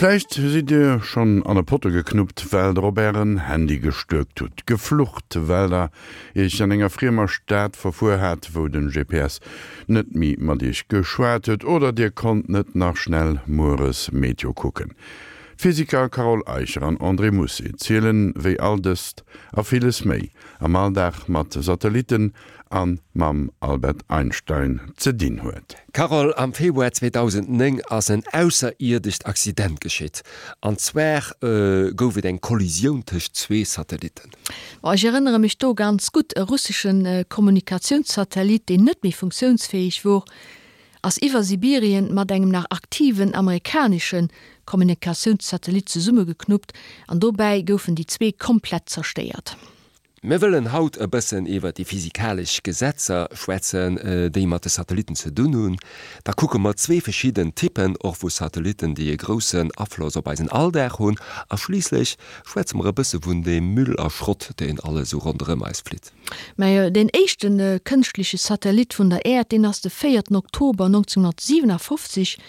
Vläicht sidd Dir schonn an e Potto geknuppt, well der op Ären Handy gestuerkt hutt, geflucht, well der Iech an enger friemer Stad verfuer hat, wou den GPS net méi mat Iech geschwat huet, oder Dir konnt net nach schnell mueres Meteo kucken. D'Physiker Carole Eicher an André Mousset zielen, wéi all dëst a villes méi am Alldag mat Satellitten a mam Albert Einstein ze dinn huet. Carole, am Februar 2009 ass en ausserierdescht Accident geschitt. An zwar gouf et eng Kollisioun tëscht zwee Satellitten. Bon, ech erënnere mech do ganz gutt, e russesche Kommunikatiounssatellit, deen net méi funktiounsfäeg wor, ass iwwer Sibirien mat engem nach aktiven amerikanesche Kommunikatiounssatellit zesummegeknuppt an dobäi goufen déi zwee komplett zerstéiert. Mir wëllen haut e bëssen iwwer déi physikalesch Gesetzer schwätzen, déi mat de Satellitten ze dunn hunn. Da kucke mer zwee verschidden Typpen och vu Satellitten, déi e groussen Afloss op eisen Alldag hunn. A schliisslech schwätze mer e bësse vun deem Müll a Schrott, deen alles esou ronderëm eis flitt. Mä deen éischte kënschtleche Satellit vun der Äerd, deen ass de véierten Oktober 1957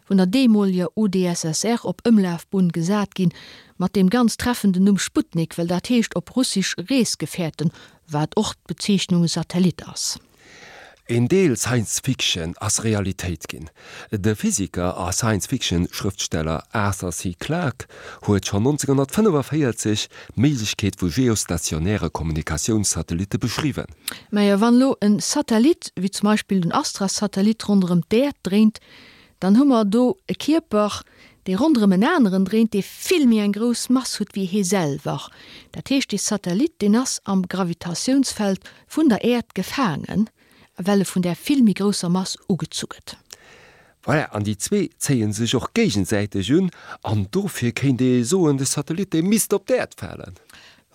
vun der deemoleger UdSSR op Ëmlafbunn gesat ginn, mat deem ganz treffenden Numm Sputnik, well dat heescht op Russisch Reesgefährten, wat och d'Bezeechnung Satellit ass. Een Deel Science Fiction ass Realitéit ginn. De Physiker a Science Fiction Schrëftsteller Arthur C. Clarke huet schonn 1945 d'Méiglechkeet vu geostationäre Kommunikatiounssatellitte beschriwwen. Mä wann elo e Satellit, wéi zum Beispill den Astra-Satellit ronderëm d'Äerd dréint, Dann hu mer do e Kierper, dee ronderëm en aneren dréint, dee vill méi eng grouss Mass huet wéi hee selwer. Dat heescht, dee Satellit, deen ass am Gravitatiounsfeld vun der Äerd gefaangen, well e vun där vill méi grousser Mass ugezu gëtt. Voilà, an déi zwee zéie sech och géigesäiteg un, an dofir kéint ee soen, de Satellit, dee misst op d'Äerd falen.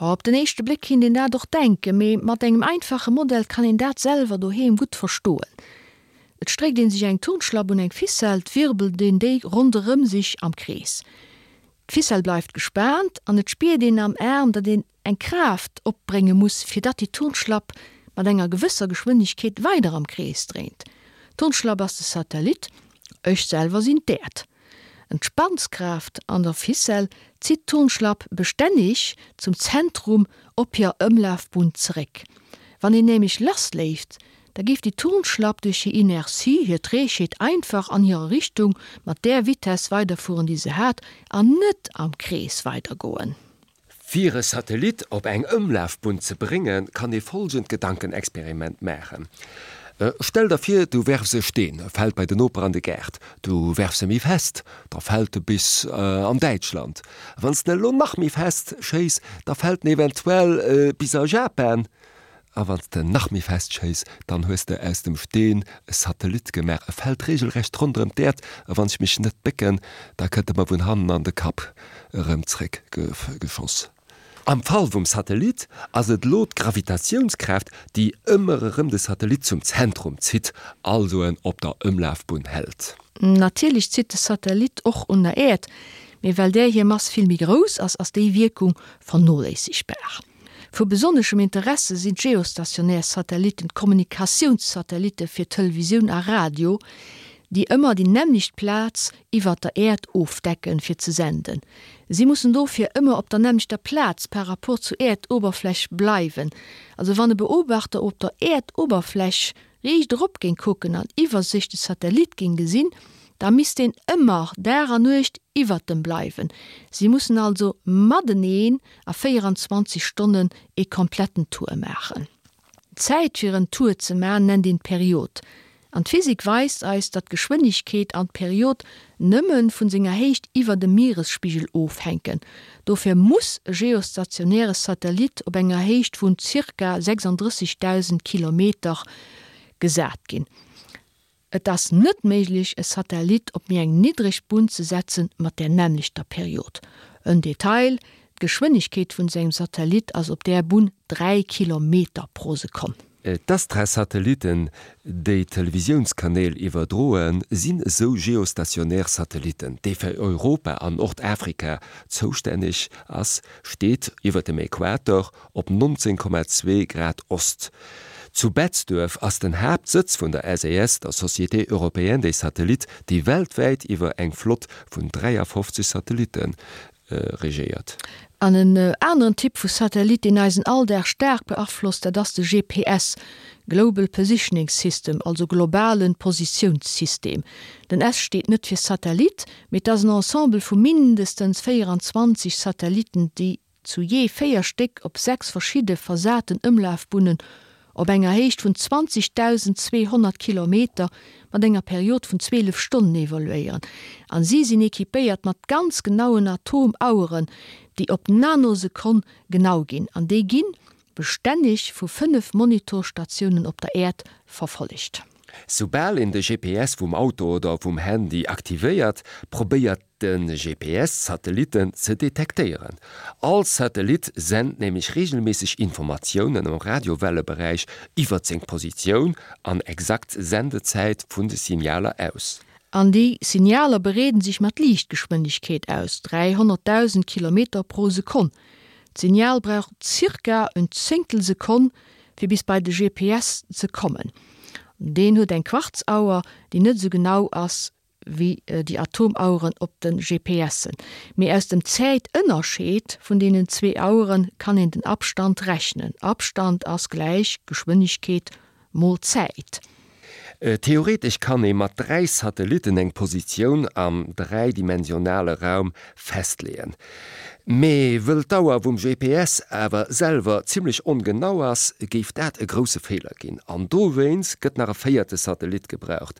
Jo, op den éischte Bléck kinnt een dat och denken, mee mat engem einfache Modell kann een dat selwer doheem gutt verstoen. Et stréckt een sech eng Turnschlapp un eng Ficelle, 't wirbelt een déi ronderëm sech am Krees. D'Ficelle bleift gespaant an et spiert een am Aarm, datt een eng Kraaft opbrénge muss, fir datt déi Turnschlapp mat enger gewësser Geschwindegkeet weider am Krees dréint. D'Turnschlapp ass de Satellit, ech selwer sinn d'Äerd. En D'Spannskraaft an der Ficelle zitt d'Turnschlapp bestänneg zum Zentrum op hir Ëmlafbunn zeréck. Wann een nämlech lassléift, da géif déi Turnschlapp duerch hir Inertie, hir Trägheet, einfach an hirer Richtung mat där Vitess weiderfueren, déi se hat, an net am Krees weidergoen. Fir e Satellit op eng Ëmlafbunn ze bréngen, kann ee folgend Gedankenexperiment maachen, Stell der vir, du werfs e Steen, e fält bei den Noper an de Gaart. Du werfs e méi fest, da fält e bis an Däitschland. Wann s de en elo nach méi fest schéiss, da fält en eventuell bis a Japan. A wann s de nach méi fest schéiss, dann hues de aus dem Steen e Satellit gemaach. E fält regelrecht ronderëm d'Äerd, a wann ech mech net bécken, da kënnt e mer vun hannen an de Kapp erëm zréck geschoss. Am Fall vum Satellit ass et elo d'Gravitatiounskraaft, déi ëmmer erëm de Satellit zum Zentrum zitt, also en op der Ëmlafbunn hält. Natierlech zitt de Satellit och un der Äerd, mee well där hir Mass vill méi grouss ass, ass déi Wierkung vernoléissegbar. Vu besonneschem Interesse sinn d'geostationär Satellitten, d'Kommunikatiounssatellitte fir Televisioun a Radio, déi ëmmer déi nämmlecht Plaz iwwer der Äerd ofdecken, fir ze senden. Si mussen dofir ëmmer op der nämmlechter Plaz par rapport zur Äerdoberfläch bleiwen. Also wann e Beobachter op der Äerdoberfläch riicht erop géing kucken an iwwer sech de Satellit géing gesinn, da misst deen ëmmer Dag an Nuecht iwwert dem bleiwen. Si mussen also mateneen a 24 Stonnen ee kompletten Tour maachen. D'Zäit fir en Tour ze man nennt een d'Period. An d'Physik weist eis, datt d'Geschwënnegkeet an d'Period nëmme vun senger Héicht iwwer dem Mieresspigel ofhänken. Dofir muss e geostationäre Satellit op enger Héicht vun zirka 36.000 Kilometer gesat ginn. Et ass net méiglech, e Satellit op méi eng niddreg Bunn ze setzen mat där nämmlechter Period. En Detail, D'Geschwënnegkeet vun sengem Satellit ass op där Bunn 3 Kilometer pro Sekonn. D'Astra-Satellitten, déi d'Televisiounskanäl iwwerdroen, sinn esou geostationär Satellitten. Dee fir Europa an Nordafrika zoustänneg ass, steet iwwer dem Äquator op 19,2 Grad Ost. Zu Betzdorf ass den Haaptsëtz vun der SES, der Société Européenne des Satellites, déi weltwäit iwwer eng Flott vun 53 Satellitte regéiert. An en aneren Typ vu Satellit, deen eisen Alldag staark beaflosst, dat ass de GPS, Global Positioning System, also globale Positiounssystem. Den S steet net fir Satellit, mee et ass en Ensemble vu mindestens 24 Satellitten, déi zu jee 4 Stéck op 6 verschidde versaten Ëmlafbunnen op enger Héicht vun 20.200 Kilometer mat enger Period vun 12 Stonnen evoluéieren an si sinn equipéiert mat ganz genauen Atomaueren, déi op d'Nanosekonn genau ginn an déi gi bestänneg vu 5 Monitorstatiounen op der Äerd verfollegt. Soubal een de GPS vum Auto oder vum Handy aktivéiert, probéiert de GPS d'Satellitten ze detektéieren. All Satellit sent nämlech reegelméisseg Informatiounen am Radiowelleberäich iwwert seng Positioun an exakt Sendezäit vun de Signaler aus. An déi Signaler bereeden sech mat Liichtgeschwindegkeet aus, 300.000 Kilometer pro Sekonn. D'Signal brauch zirka en Zéngtel Sekonn fir bis bei de GPS ze kommen. Deen huet eng Quarzauer, déi net esou genau ass wéi déi Atomaueren op de GPSen. Mee aus dem Zäitënnerscheed vun deenen zwee Auere kann een den Abstand rechnen. Abstand ass gläich Geschwënnegkeet mol Zäit. Theoretesch kann ee mat 3 Satellitten eng Positioun am dräidimensionale Raum festleeën. Mee wëll d'Auer vum GPS awer selwer zimmlech ongenau ass, géif dat e grousse Feeler ginn. An dowéinst gëtt nach e véierte Satellit gebraucht.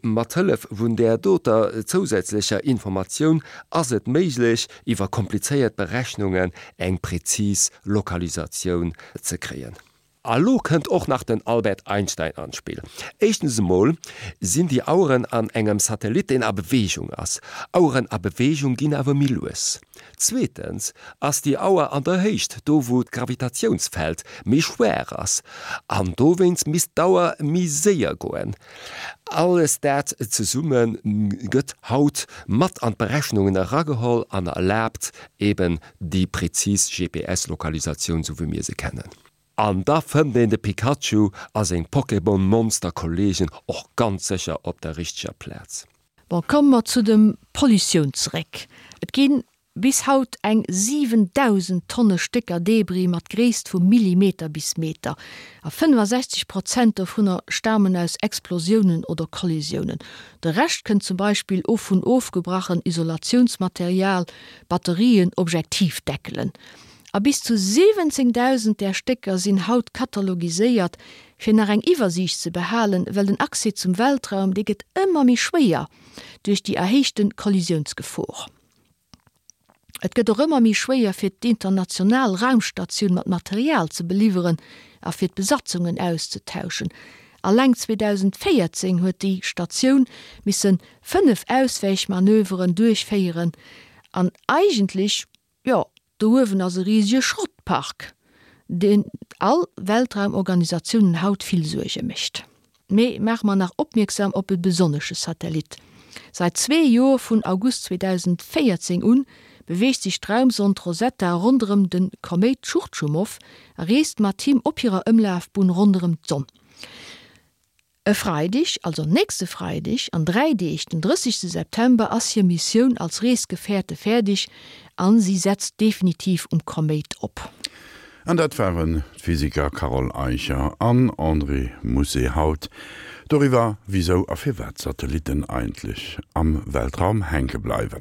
Mat Hëllef vun där doter zousätzlecher Informatioun ass et méiglech, iwwer komplizéiert Berechnungen eng präzis Lokalisatioun ze kréien. A lo kënnt och nach den Albert Einstein an d'Spill. Éischtens emol sinn déi Aueren an engem Satellit, deen a Beweegung ass. Aueren a Beweegung ginn awer méi lues. Zweetens ass déi Auer an der Héicht, do wou d'Gravitatiounsfeld méi schwaach ass, an dowéinst misst d'Auer méi séier goen. Alles dat zesumme gëtt haut mat an d'Berechnungen erageholl an erlaabt eben déi präzis GPS-Lokalisatioun, sou wéi mir se kennen. An da fënnt een de Pikachu a seng Pokémon-Monster-Kollegen och ganz sécher op der richteger Plaz. Bon, komme mer zu dem Pollutioun zeréck. Et gi bis haut eng 7.000 Tonne Stécker Debris mat Gréisst vu Millimeter bis Meter. A 65 Prozent dovunner stamen aus Explosiounen oder Kollisiounen. De Rescht kënnt zum Beispill of vun ofgebrachen Isolatiounsmaterial, Batterien, Objektivdeckelen. A bis zu 17.000 där Stécker sinn haut katalogiséiert, fir nach eng Iwwersiicht ze behalen, well den Accès zum Weltraum, dee gëtt ëmmer méi schwéier duerch déi erhéichte Kollisiounsgefor. Et gëtt och ëmmer méi schwéier fir d'international Raumstatioun mat Material ze beliwweren a fir d'Besatzungen auszetauschen. Alleng 2014 huet déi Statioun misse 5 Auswäichmanöveren duerchféieren an eigentlech, Jo, do uewen ass e risege Schrottpark, deen all Weltraumorganisatiounen haut vill Suerge mécht. Mee maache mer nach opmierksam op e besonnesche Satellit. Seit zwee Joer, vun August 2014 un, beweegt sech d'Raumsond Rosetta ronderëm de Koméit Tschurtschumov a reest mat him op hirer Ëmlafbunn ronderëm d'Sonn. E Freideg, also nächste Freideg an 3 Deeg, den 30 September, ass hir Missioun als Reesgefährte fäerdeg an si setzt definitiv um Koméit op. An dat waren d'Physiker Carole Eicher an André Mousset haut doriwwer, wisou a firwat Satellitten eigentlech am Weltraum hänke bleiwen.